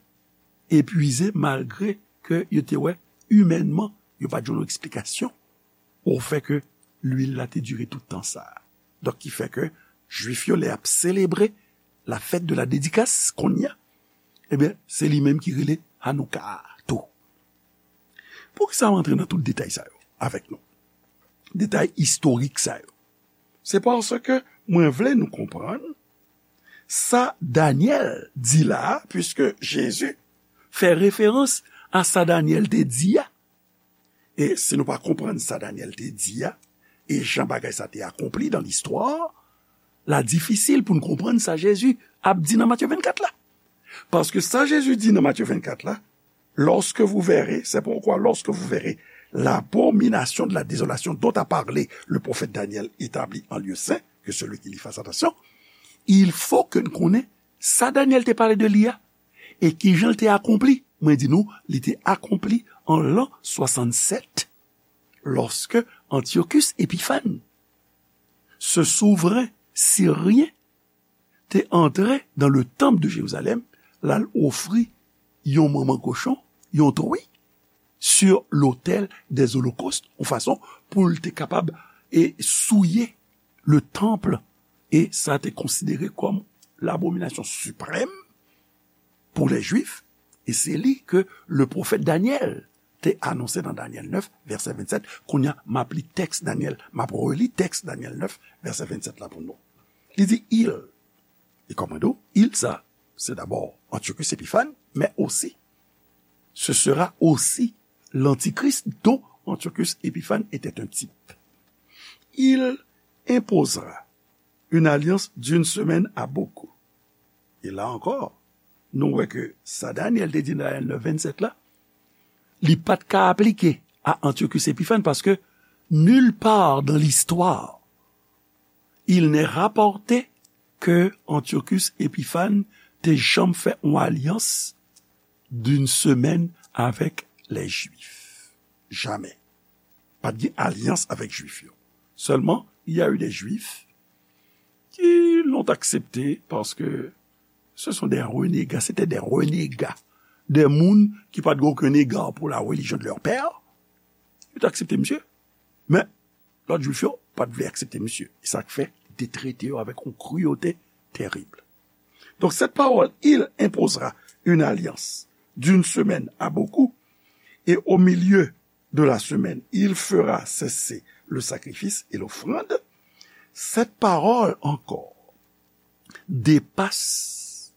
epwize, malgre ke yo te wè imènman, yo pa t jwenn yon eksplikasyon au fait que lwil la te dire tout tan sa a. Donk, ki fè ke Jwif yo, lè y ap selebre la fête de la dédicace, kounye a, ebyen, se li menm ki rele Hanouka a tou. Poukisa m antre nan tout detay sa yo avèk nou? Detay istorik sa yo. Se paske mwen vle nou konprann sa Danyèl di la a, puiske Jezi fè referans a sa Danyèl te di a. E si nou pa konprann sa Danyèl te di a, e jan bagay sa te akonpli dan listwa, la difisil pou n konprann sa Jezi ap di nan Matye vennkat la. Paske sa Jezi di nan Matye vennkat la, lorsque vous verrez, c'est pourquoi lorsque vous verrez l'abomination de la désolation dont a parlé le prophète Daniel établie en lieu saint, que celui qui lit fasse attention, il faut que n konnen sa Danyèl te pale de li a, e kijan l te akonpli. Mwen di nou, li te akonpli an lan swasannsèt, lorsque Antiochus Epiphan, ce souverain syrien, te antre dans le temple de Jérusalem, l al ofri yon manman kochon, yon tou wi, sur l'autel des holocaustes, yon fason pou l te kapab e souye le temple, e sa te konsidere kòm labominasyon siprèm pou lè Jwif, e se li ke le pwofèt Danyèl te anonse nan Danyèl nèf, vèsè vennsèt. Kounye a, m ap li tèks Danyèl, m ap reli tèks Danyèl nèf, vèsè vennsèt la pou nou. Li di, il, e kòman di w, il sa, se dabò Antiochus Epiphan, men osi, ce sera aussi l'antichrist dont Antiochus Épiphan était un type. Il imposera une alliance d'une semaine à beaucoup. E la ankò, nou wè ke sa Danyèl te di nan Danyèl nèf vennsèt la, li pa t ka aplike a Antiochus Epiphan, paske nulle part dans l'histoire il n'est rapporté que Antiochus Epiphan te janm fè yon alyans d'une semaine avec les Juifs. Jamais. Pa t gen alyans avèk Jwif yo. Seulement, il y a eu des Juifs qui l'ont accepté parce que ce sont des renégats, c'était des renégats. Des moun ki pa t gen okenn ega pou la religion de leur père. Yo te aksepte misye. Men, lòt Jwif yo pa t vle aksepte misye. E sa k fè li te trete yo avèk yon kriyote terib. Donc, cette parole, il imposera une alliance d'une semaine à beaucoup, et au milieu de la semaine, il fera cesser le sacrifice et l'offrande. Cette parole encore dépasse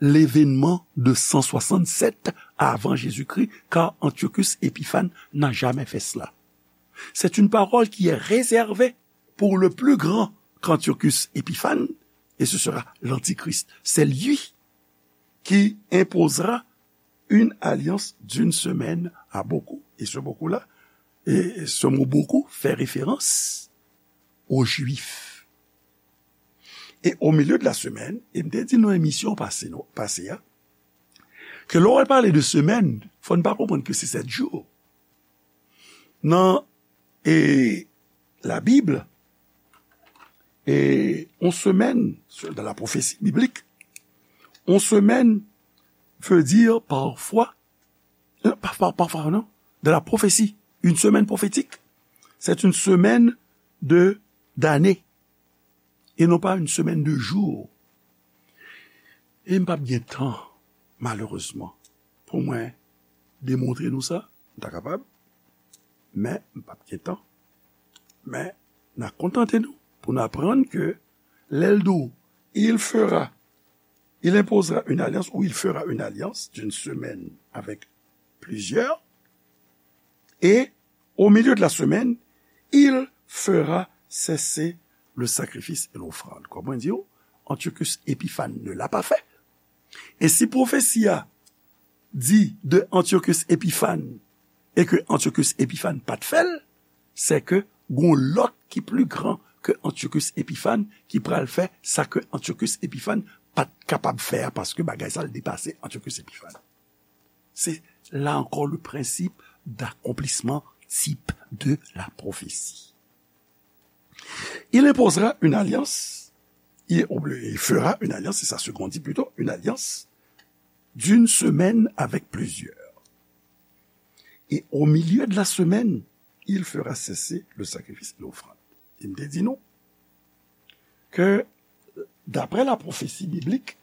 l'événement de cent soixante-sept avant Jésus-Christ, car Antiochus Épiphan n'a jamais fait cela. C'est une parole qui est réservée pour le plus grand qu'Antiochus Épiphanes, et ce sera l'Antichrist. C'est lui qui imposera une alliance d'une semaine à beaucoup. Et ce beaucoup-là, et ce mot beaucoup fait référence aux Juifs. E o milye de la semèn, e m te di nan emisyon pase, non, pase a, ke lè w pale de semèn, fò n pa konprann ke se sèt jou. Nan, e, la Bible, e, on semèn, dans la prophétie biblique, on semèn veut dire parfois, euh, pa, pa, parfois, non, dans la prophétie, une semaine prophétique, c'est une semaine de, d'année, et non pas une semaine de jours. E m p ap gen tan, malerezman, pou mwen demontre nou sa. M ta kapab, men m p ap gen tan. Men, n a kontante nou pou n aprann ke lè l di w, il fera, il imposera une alliance ou il fera une alliance d'une semaine avec plusieurs, et au milieu de la semaine, il fera cesser le sacrifice et l'offrande. Kòman di w, Antiochus Épiphanes ne l'a pas fait. E si pwofesi a di de Antiochus Épiphanes e ke Antiochus Épiphanes pa t fè l, se ke gon lòt ki pli gran ke Antiochus Épiphanes ki pral fè sa ke Antiochus Épiphanes pa t kapab fè a, paske bagay sa l depase Antiochus Épiphanes. C'est là encore le principe d'accomplissement type de la prophétie. Il imposera une alliance, il, il fera une alliance, c'est ça ce qu'on dit plutôt, une alliance d'une semaine avec plusieurs. Et au milieu de la semaine, il fera cesser le sacrifice et l'offrande. E m te di nou ke, d'après la prophétie biblique,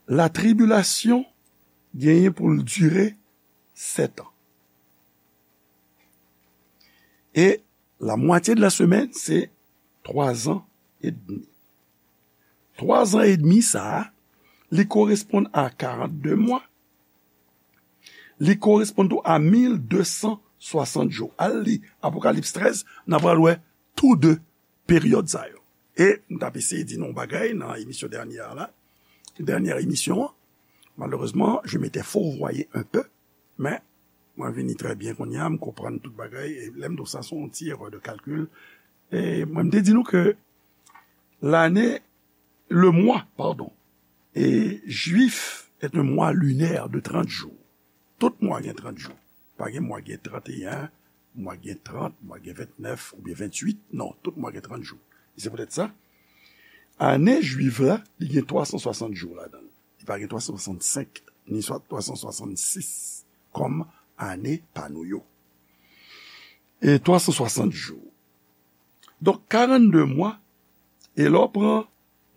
la tribulation genyen pou l dire sèt an. E la moitié de la semaine, c'est trois ans et demi. Twa zan edmi sa a, li koresponn a karannde mwa, li koresponn tou a mil de san swasant jou. Al li Apokalips trèz, n a pral wè tou de peryòd sa yo. E m t ap eseye di nou yon bagay nan emisyon dènyè a la, dènyè emisyon an. Malheureusement, je m'étais fourvoyé un peu, men mwen vini trè byen kounye a, m konprann tout bagay, e lè m di w sa, se yon ti erè de kalkil. E mwen, m te di nou ke lane, le mwa, padon, e jwif, est un mois lunaire de trente jours. Tout mwa gen trant jou. Pa gen mwa gen tranteyen, mwa gen trant, mwa gen ventnèf oubyen ventuit. Non, tout mwa gen trant jou. E se poutèt sa, ane jwif la, li gen twa san swasant jou ladan l. Li pa gen twa san swasannsenk, ni swa twa san swasannsis, kòm ane pa nou yo. E twa san swasant jou. Donk, karannde mwa, e lè w pran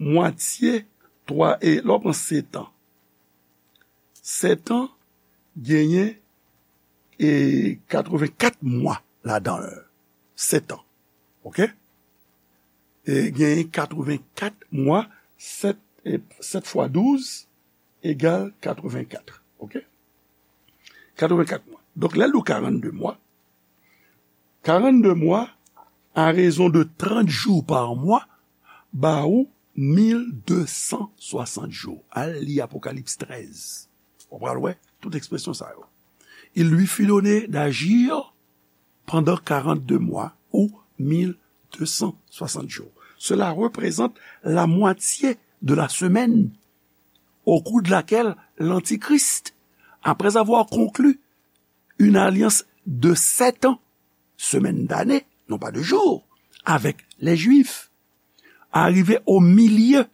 mwatye twa, e lè w pran sèt an, sèt an genyen, e, katrevenkat mwa ladan l. Sèt an. Oke? E genyen katrevenkat mwa, sèt, e, sèt fwa douz egal katrevenkat. Oke? Katrevenkat mwa. Donk, lè l di w karannde mwa, karannde mwa, à raison de trente jours par mois, ba ou mil de san swasant jou. Al li Apokalips trèz. Ou pral wè tout ekspresyon sa yo. Il lui fut donné d'agir pendant quarante-deux mois ou mille deux cent soixante jours. Cela représente la moitié de la semaine au cours de laquelle l'Antichrist, après avoir conclu une alliance de sept ans, semaine d'année, non pas de jours, avec les Juifs, arrivé au milieu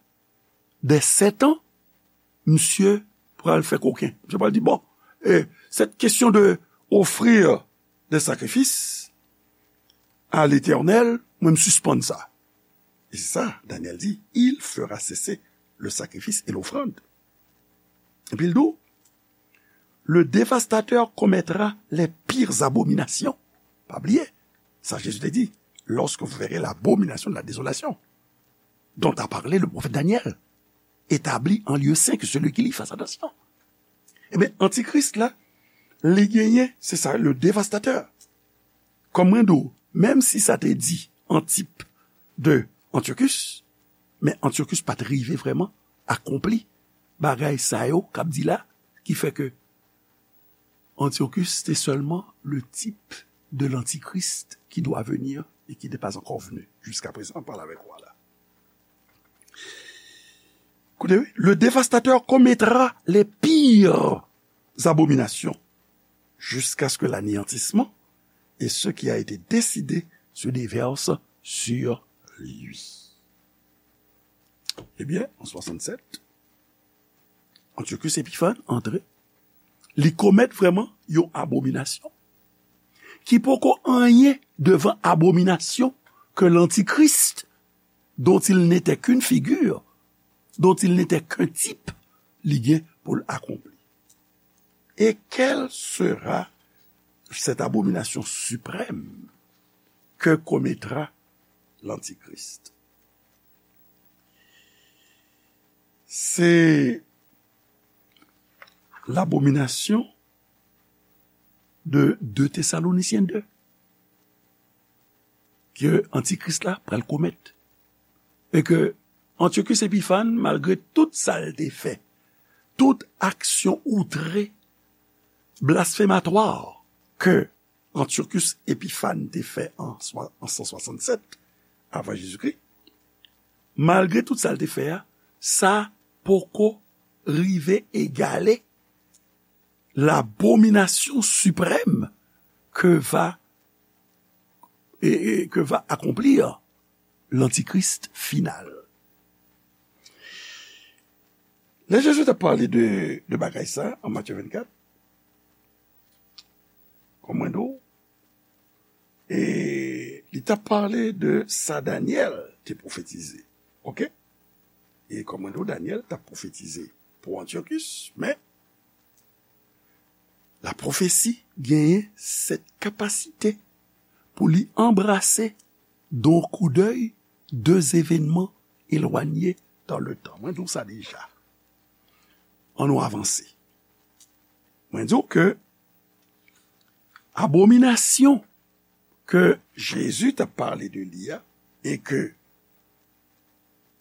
des sept ans, misye pral fè koken. Misye pral di, bon, eh, cette question de offrir des sacrifices à l'Éternel, mwen m sispann sa. E se sa, Daniel di, il fera cesser le sacrifice et l'offrande. Epi l di w, le dévastateur commettra les pires abominations. Pa bliye, sa Jezi te di, lorsque vous verrez l'abomination de la désolation, dont a parlé le prophète Daniel, établi en lieu saint, que celui qui lit fasse attention. Ebyen, Antikris la, li genyen, se sa, le dévastateur. Kòm mwen di w, menm si sa te di Antip de Antiochus, men Antiochus pa t rive vrèman akonpli bagay sa yo k ap di la, ki fè ke Antiochus te sèlman le type de l'antichrist qui doit venir et qui n'est pas encore venu. Jusqu'à présent, an pale avèk ou la. Koute, wi, le dévastateur commettra les pires abominations jusqu'à ce que l'anéantissement et ce qui a été décidé se déverse sur lui. Ebyen, an swasannsèt, Antiochus Épiphan antre, li komèt vrèman yon abominasyon ki poko anyen devan abominasyon ke l'antichrist, dont il n'était qu'une figure, dont il n'était qu'un type, li gen pou l akonpli. Et quelle sera cette abomination suprême que commettra l'Antichrist? C'est l'abomination de deux Thessaloniciens deux ke Antikris la pral komèt. E ke Antiochus Épiphan, malgre tout sa l te fè, tout aksyon outre, blasfématoire ke Antiochus Épiphan te fè an swa-, an san swasannsèt avan Jezikri, malgre tout sa l te fè a, sa poko rive egale l'abomination suprême que va, et, et que va accomplir l'antichrist final. Lè Jezi t ap pale de, de bagay sa an Matye vennkat, kòm mwen di w, e li t ap pale de sa Danyèl te pwofetize. Oke? E kòm mwen di w, Danyèl t ap pwofetize pou Antiochus, men la pwofesi genyen sèt kapasite pou li anbrase, d'un coup d'œil, de zevènman elwanye dan le tan. Mwen di w sa deja. Ann nou avanse. Mwen di w ke abominasyon ke Jezi t ap pale de li a, e ke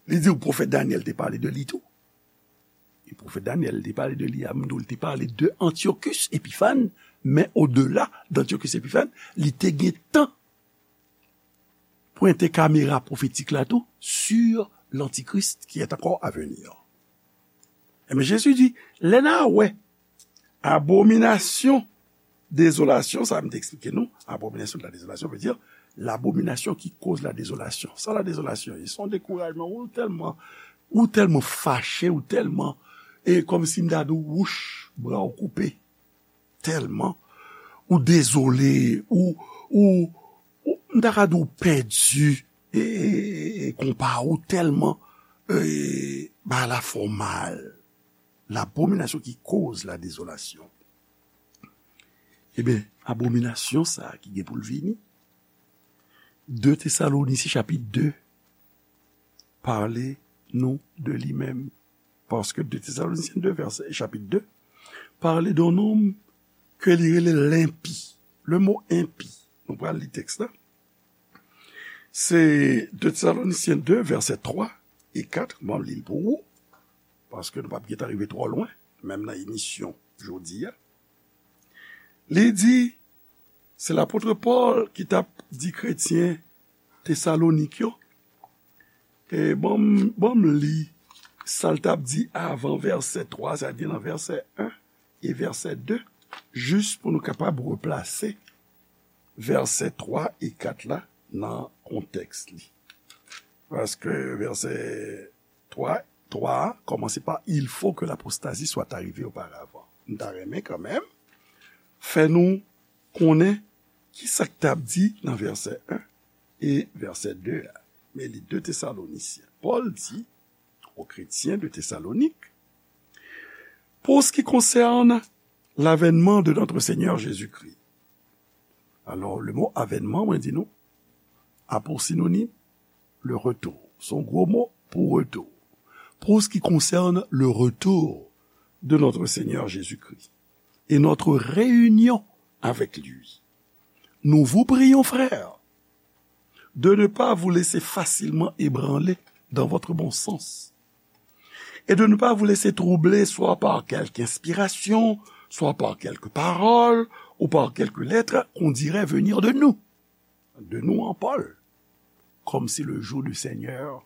li di w pwofèt Danyèl te pale de li tou. E pwofèt Danyèl te pale de li a, m di w, li te pale de Antiochus Épiphan, men odela d'Antiochus Épiphan, li te gen tan pwente kamera pwofetik la tou sur l'Antichrist qui est encore à venir. Ebyen, Jezi di, lè n a wè abominasyon dezolasyon, sa m te eksplike nou, abomination de la désolation veut dire l'abomination qui cause la désolation. Sa la désolation ye? Se yon dekourajman, ou tèlman, ou tèlman fache, ou tèlman, e kòmsi m ta di w, wouch, bra w koupe. Tèlman ou dezole, ou, ou, ou, m ta ka di w pèdi, e, e, e, e konpa ou tèlman, e, bagay la fè w mal. L'abomination qui cause la désolation. Ebyen, abominasyon sa a ki gen pou l vini, de Tesalonisyen chapit de pale nou de li menm. Paske de Tesalonisyen de, vèsè, chapit de, pale de yon nonm ke li rele lenpi. Le mo enpi, nou pral li tèks la. Se de Tesalonisyen de, vèsè twa e kat, m ap li l pou ou, paske nou p ap gentan rive twò lwen, menm nan emisyon jodi a. Li di, se lapot Pòl ki t ap di kretyen Tesalonik yo, e ban m, ban m li sa l t ap di avan vèsè twa, sa vle di nan vèsè en e vèsè de, jis pou nou kapab replase vèsè twa e kat la nan kontèks li. Paske vèsè twa, twa a kòmanse pa, il faut que l'apostasie soit arrivée auparavant. M ta renmen kanmenm fè nou konnen ki sa k t ap di nan vèsè en e vèsè de a. Men li de Tesalonisyen. Pòl di aux chrétiens de Thessalonique, pour ce qui concerne l'avènement de notre Seigneur Jésus-Christ. Alò, le mo avènman, mwen di nou, a pou sinonим, le retour. Se yon gwo mo pou retou. Pour ce qui concerne le retour de notre Seigneur Jésus-Christ et notre réunion avec lui, Nous vous prions, frères, de ne pas vous laisser facilement ébranler dans votre bon sens, et de ne pas vous laisser troubler soit par quelque inspiration, soit par quelque parole, ou par quelque lettre qu'on dirait venir de nous, de nous en Paul, comme si le jour du Seigneur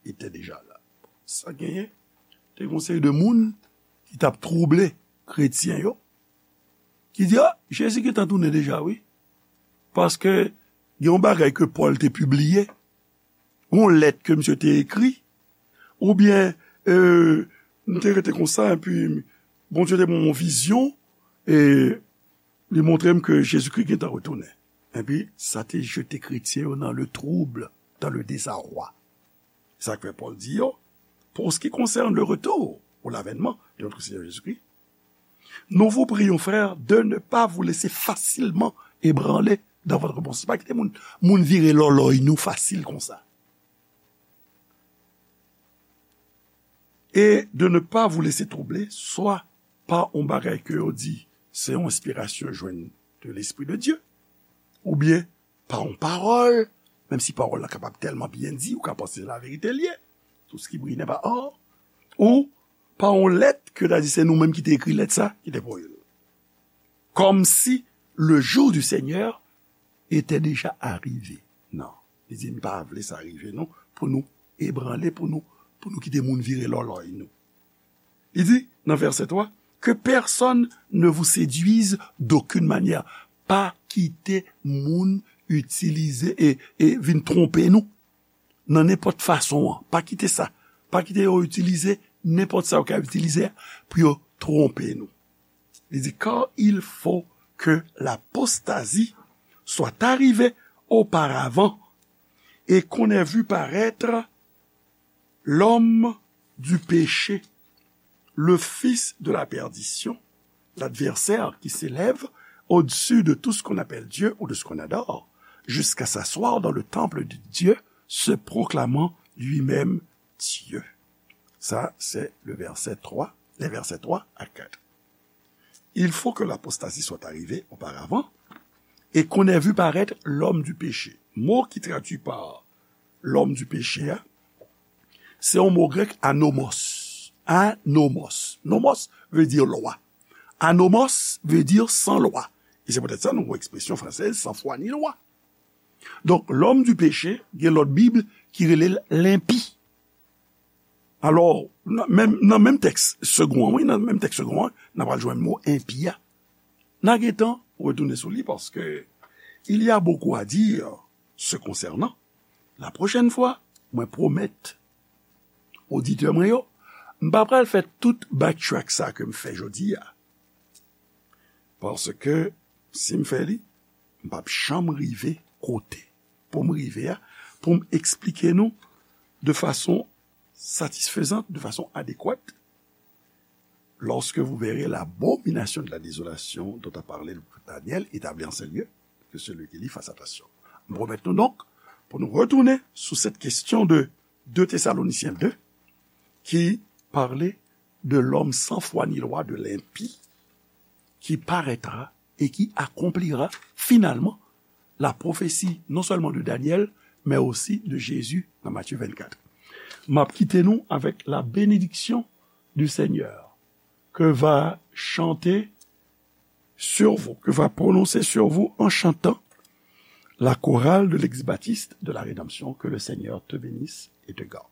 était déjà là. Sa genyen, te gen yon seri de moun ki t ap twouble kretyen yo, ki di, a, Jezi gentan tounen deja, wi. Paske gen yon bagay ke Pòl te pibliye, yon lèt ke misye te ekri, oubyen, e, m te rete konsa, epi Bondye te ban m yon vizyon, e li montre m ke Jezikri gentan retounen. Epi, sa te jete kretyen yo dans le trouble, dans le désarroi. Sa k fè Pòl di yo, pour ce qui concerne le retour ou l'avènement de notre Seigneur Jésus-Christ, nous vous prions, frères, de ne pas vous laisser facilement ébranler dans votre pensée. Pa kite moun, moun vire lòlòy nou fasil konsa. Et de ne pas vous laisser troubler, soit pa yon bagay ke yo di se yon enspirasyon jwenn de Lespri de Dye, oubyen pa yon pawòl, menm si pawòl la kapab tèlman byen di, ou ka panse se laverite l ye, tout ce qui brille n'est pas or, ou pa yon lèt ke ta di se nou menm ki te ekri lèt sa, ki te voye l. Comme si le jour du Seigneur était déjà arrivé. Non. Li di, m pa vle sa rive nou, pou nou ebranle, pou nou, pou nou kite moun vire lòlòy nou. Li di, nan vèsè twa, que personne ne vous séduise d'aucune manière. Pa kite moun itilize e, e vin twonpe nou nan nenpòt fason an. Pa kite sa. Pa kite yo itilize nenpòt sa yo ka itilize pou yo twonpe nou. Li di, car il faut que l'apostasie soit arrivée auparavant et qu'on ait vu paraître l'homme du péché, le fils de la perdition, l'adversaire qui s'élève au-dessus de tout ce qu'on appelle Dieu ou de ce qu'on adore, jusqu'à s'asseoir dans le temple de Dieu, se proclamant lui-même Dieu. Ça, c'est le verset trois, les versets trois à quatre. Il faut que l'apostasie soit arrivée auparavant et qu'on ait vu paraître l'homme du péché. Mo ki tradui pa l'homme du péché a, se yon mo grèk anomos. Anomos. Nomos vle di lwa. Anomos vle di san lwa. E se poutèt sa nou gen ekspresyon fransèz sans foi ni loi. Donk, l'homme du péché, gen lòt Bib ki rele l lenpi. Alò, nan menm, nan menm tèks segond an, wi, nan menm tèks segond an, n a pral jwenn mo enpi a. N a gentan retounen sou li paske il y a beaucoup à dire se concernant. La prochaine fois, mwen pwomèt oditè mwen yo, m pa pral fè tout backtrack sa ke m fè jodi a. Paske si m fè li, m p ap janm rive kote pou m rive a, pou m eksplike nou de façon satisfaisante, de façon adéquate, lorsque vous verrez l'abomination de la désolation dont a parlé le prophète Daniel établie en ce lieu, que celui qui lit fasse attention. M pwomèt nou donk pou nou retounen sou cette question de deux Thessaloniciens deux, qui parlait de l'homme sans foi ni loi, de l'impie, qui paraîtra et qui accomplira finalement la prophétie non seulement de Daniel, mais aussi de Jésus dans Matthieu vingt-quatre. M ap kite nou avec la bénédiction du Seigneur que va chanter sur vous, que va prononcer sur vous en chantant la chorale de l'ex-baptiste de la rédemption. Que le Seigneur te bénisse et te garde.